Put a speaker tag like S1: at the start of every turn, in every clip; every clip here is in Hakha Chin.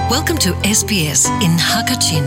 S1: Welcome to SBS in Hakachin.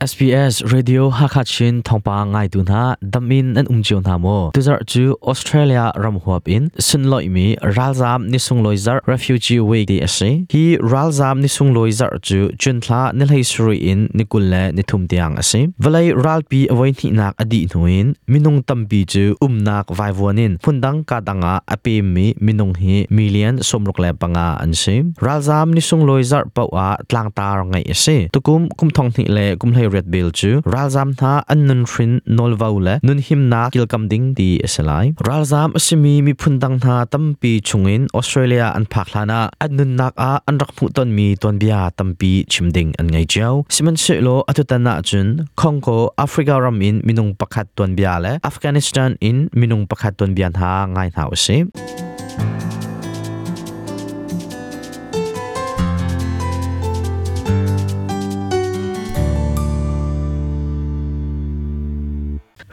S2: SBS Radio Hakha Chin thawngpang ngaitu hna damin an um cio hna maw? Tuzarh cu Australia ram huap in sunlawihmi ralzaam ni sunglawi zarh Refugee Week ti a si. Hi ralzaam ni sunglawi zarh cu June thla ni hlei sarih in ni 23 tiang a si. Vawlei ralpi a voihnihnak a dih hnu in minung tampi cu umnak vaivuan in hmundang ka dang ah a pemmi minung hi million 65 an si. Ralzaam ni sunglawi zarh paoh ah tlangtar ngeih a si. Tukum kum thong hnih le kum 18 bel cu ralzaam hna an nunhrin nawlvo le nunhimnak kilkam ding ti a si lai. Ralzaam a simi miphun dang hna tampi chungin Australia an phak hlan ah an nunnak ah an rak hmuhtonmi tuanbia tampi chim ding an ngei cio. Sihmanhsehlaw atutan ahcun Congo, Africa ram in minung pakhat tuanbia le Afghanistan in minung pakhat tuanbia hna ngai hna usih.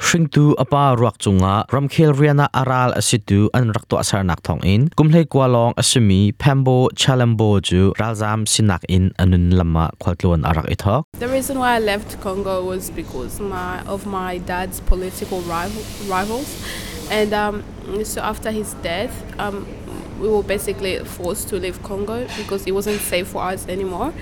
S2: Hringtu a pa ruak cungah ramkhel rian ah a ral a situ an rak tuahsernak thawngin kum 19 lawng a simi Pembo Chalambo cu ralzaam sinak in a nun lam ah khualtlawn a rak i thawk.
S3: The reason why I left Congo was because of my dad's political rivals. And so after his death, we were basically forced to leave Congo because it wasn't safe for us anymore.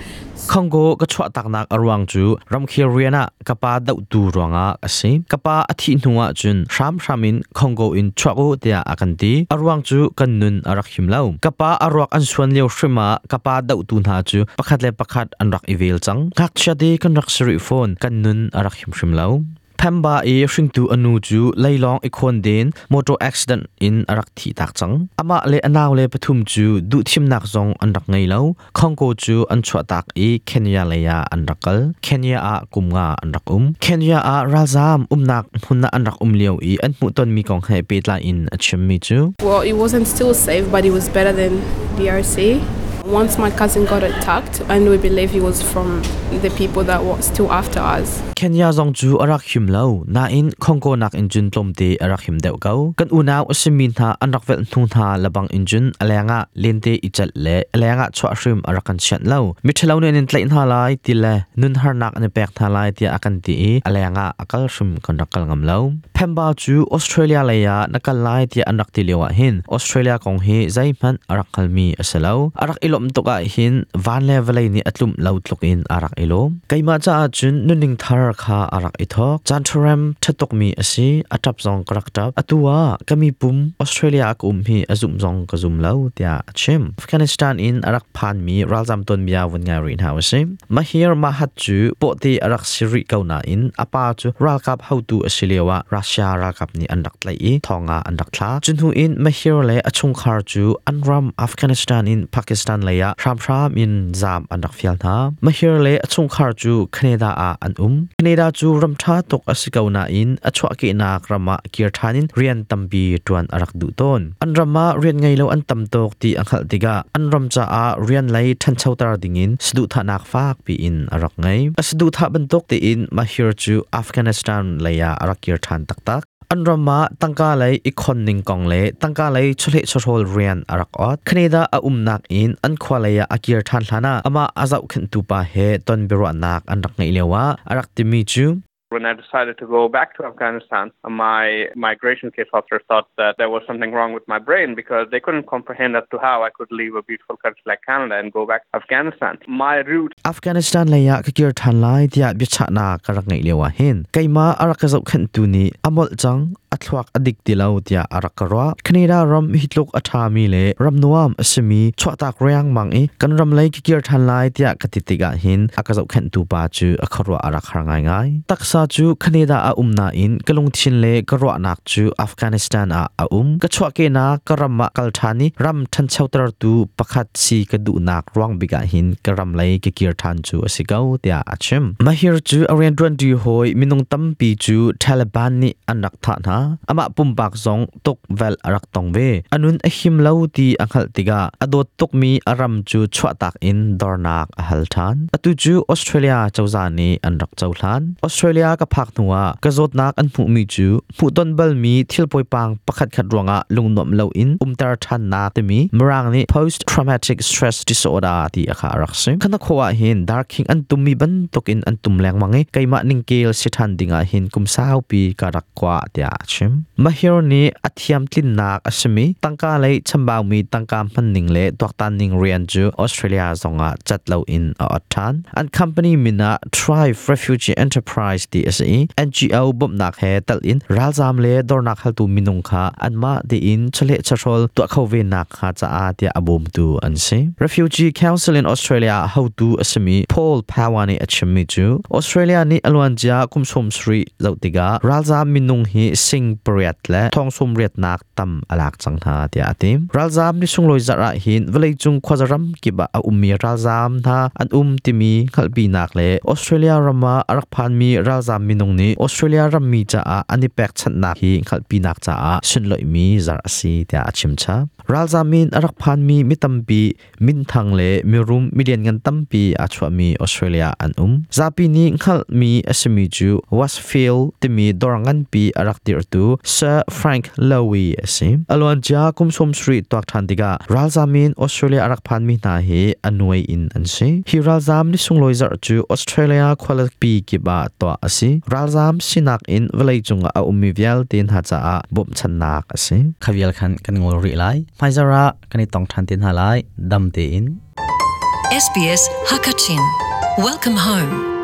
S2: Congo ka chuahtaknak a ruang cu ramkhel rian ah ka pa dohtu ruangah a si. Ka pa a thih hnu ah cun hramhram in Congo in chuak u tiah a kan ti. A ruang cu kan nun a rak him lo. Ka pa a ruak an suan lio hrim ah ka pa dohtu hna cu pakhat le pakhat an rak i vel cang. Ngakchia te kan rak si rih fawn. Kan nun a rak him hrim lo. Phemba i hringtu a nu cu leilawng i khawnden motor accident in a rak thih tak cang. Amah le a nau le pathum cu duhthimnak zong an rak ngei lo. Congo cu an chuahtak i Kenya lei ah an rak kal. Kenya ah kum nga an rak um. Kenya ah ralzaam umnak hmun ah an rak um lio i an hmuhtonmi kong he pehtlai in a chimmi cu
S3: Well, it wasn't still safe, but it was better than DRC. Once my cousin got attacked, and we believe he was from the people that were still after us.
S2: Kenya zong cu a rak him lo, nain Congo nakin cun tlawmte a rak him deuh ko. Kan unau a simi hna an rak velh hnu hna lebang in cun a lengah lente i celh le a lengah chuah hrim a rak kan chianh lo. Miṭhalo nih an in tlaih hna lai ti le nun harnak an i pek hna lai tiah a kan ti i a lengah a kal hrim kan rak kal ngam lo. Phemba cu Australia lei ah na kal lai tiah an rak ti lio ah hin Australia kong hi zeihmanh a rak hngalmi a si lo. A rak i lawmh tuk ah hin van le vawlei nih a tlumh lo tluk in a rak i lawm. Keimah caah cun nunning thar kha a rak i thawk. Caan ṭharem ṭha tukmi a si. A ṭap zong ka rak ṭap. Atu ah ka mipum Australia ah ka um hi a zumh zong ka zum lo tiah a chim. Afghanistan in a rak phanmi ralzam tuanbia vun ngai rih hna usih. Mahir Mahat cu pawhte a rak si rih ko nain a pa cu ralkap hotu a si lioah Russia ralkap nih an rak tlaih i thong ah an rak thla. Cu hnu in Mahir le a chungkhar cu an ram Afghanistan in Pakistan lei ah hramhram in zaam an rak fial hna. Mahir le a chungkhar cu Canada ah an um. Canada cu ram ṭha tuk a si ko nain a chuahkehnak ram ah kir ṭhan in rian tampi ṭuan a rak duh tawn. An ram ah rian ngei lo an tam tuk ti a hngalh tikah an ram caah rian lei ṭhanchoter dingin saduhthahnak fakpi in a rak ngei. A saduhthah bantuk tein Mahir cu Afghanistan lei ah a rak kir ṭhan taktak. An ram ah tangka lei i khon ning kong le tangka lei chawleh chawhrawl rian a rak ot. Canada a umnak in an khua lei ah a kir ṭhan hlan ah amah a zohkhenhtu pa he ton biaruahnak an rak ngeih lioah a rak timi cu
S4: When I decided to go back to Afghanistan, my migration case officer thought that there was something wrong with my brain because they couldn't comprehend as to how I could leave a beautiful country like Canada and go back to Afghanistan. My route
S2: Afghanistan lei ah ka kir ṭhan lai tiah biachahnak ka rak ngeih lio ah hin keimah a rak ka zohkhenhtu nih a molh cang a thluak a dik ti lo tiah a rak ka ruah. Canada ram hi tluk a ṭhami le ram nuam a simi chuahtak riangmang i kan ram lei ka kir ṭhan lai tiah ka ti tikah hin a ka zohkhenhtu pa cu a khuaruah a rak har ngaingai. Taksa cu Canada ah um nain ka lungthin le ka ruahnak cu Afghanistan ah a um. Ka chuahkehnak ka ram ah kal ṭhan i ram ṭhanchotertu pakhat si ka duhnak ruang bik ah hin ka ram lei ka kir ṭhan cu a si ko tiah a chim. Mahir cu a rianṭuanṭi hawi minung tampi cu Taliban nih an rak thah hna. hna. Amah pumpak zong tuk vel a rak tong ve. A nun a him lo ti a hngalh tikah a dawt tukmi a ram cu chuahtak in dornak a hal ṭhan. Atu cu Australia cozah nih an rak cohlan. Australia ka phak hnuah ka zawtnak an hmuhmi cu hmuhton balmi thil poipang pakhatkhat ruangah lungnuamh loin umter ṭhannak timi Mirang nih post traumatic stress disorder ti a kha a rak si. Khana khawh ah hin darkhing an tummi bantukin an tum lengmang i keimah ningkel si ṭhan dingah hin kum saupi ka rak kwa tiah a chim. Mahir nih a thiamtlinnak a simi tangka lei chambaumi tangka hmanning le tuaktan ning rian cu Australia zongah cat loin a ot ṭhan. An company min ah Thrive Refugee Enterprise ti a si i NGO bawmhnak he tal in ralzaam le dornak haltu minung kha anmah tein chawleh chawhrawl tuah kho ve nak hnga caah tiah a bawmtu an si. Refugee Council in Australia hotu a simi Paul Power nih a chimmi cu Australia nih a luancia kum 70 zoh tikah ralzaam minung hi sing pariat le thong sawm riatnak tam a lak cang hna tiah a ti. Ralzaam ni sunglawi zarh ah hin vawleicung khuaza ram kip ah a ummi ralzaam hna an um timi hngalhpinak le Australia ram ah a rak phanmi ralzaam minung nih Australia rammi caah an i pekchanhnak hi hngalhpinak caah sunloihmi zarh a si tiah a chim chap. Ralzaam in a rak phanmi mi tampi minthang le mirum milianngan tampi aa chuahmi Australia an um. Zapi nih hngalhmi a simi cu Westfield timi dawr nganpi a rak dirhtu Sir Frank Lowy a si. A luancia kum 70 tuak ṭhan tikah ralzaam in Australia a rak phanmi hna hi a nuai in an si. Hi ralzaam ni sunglawi zarh cu Australia khualipi kip ah tuah a si. Ralzaam sinak in vawleicung ah a ummi vialte hna caah bawmhchanhnak a si. Kha vial khan kan ngol rih lai. Hmaizarh ah kan i tong ṭhan te hna lai. Dam tein.
S1: SBS Hakachin. Welcome home.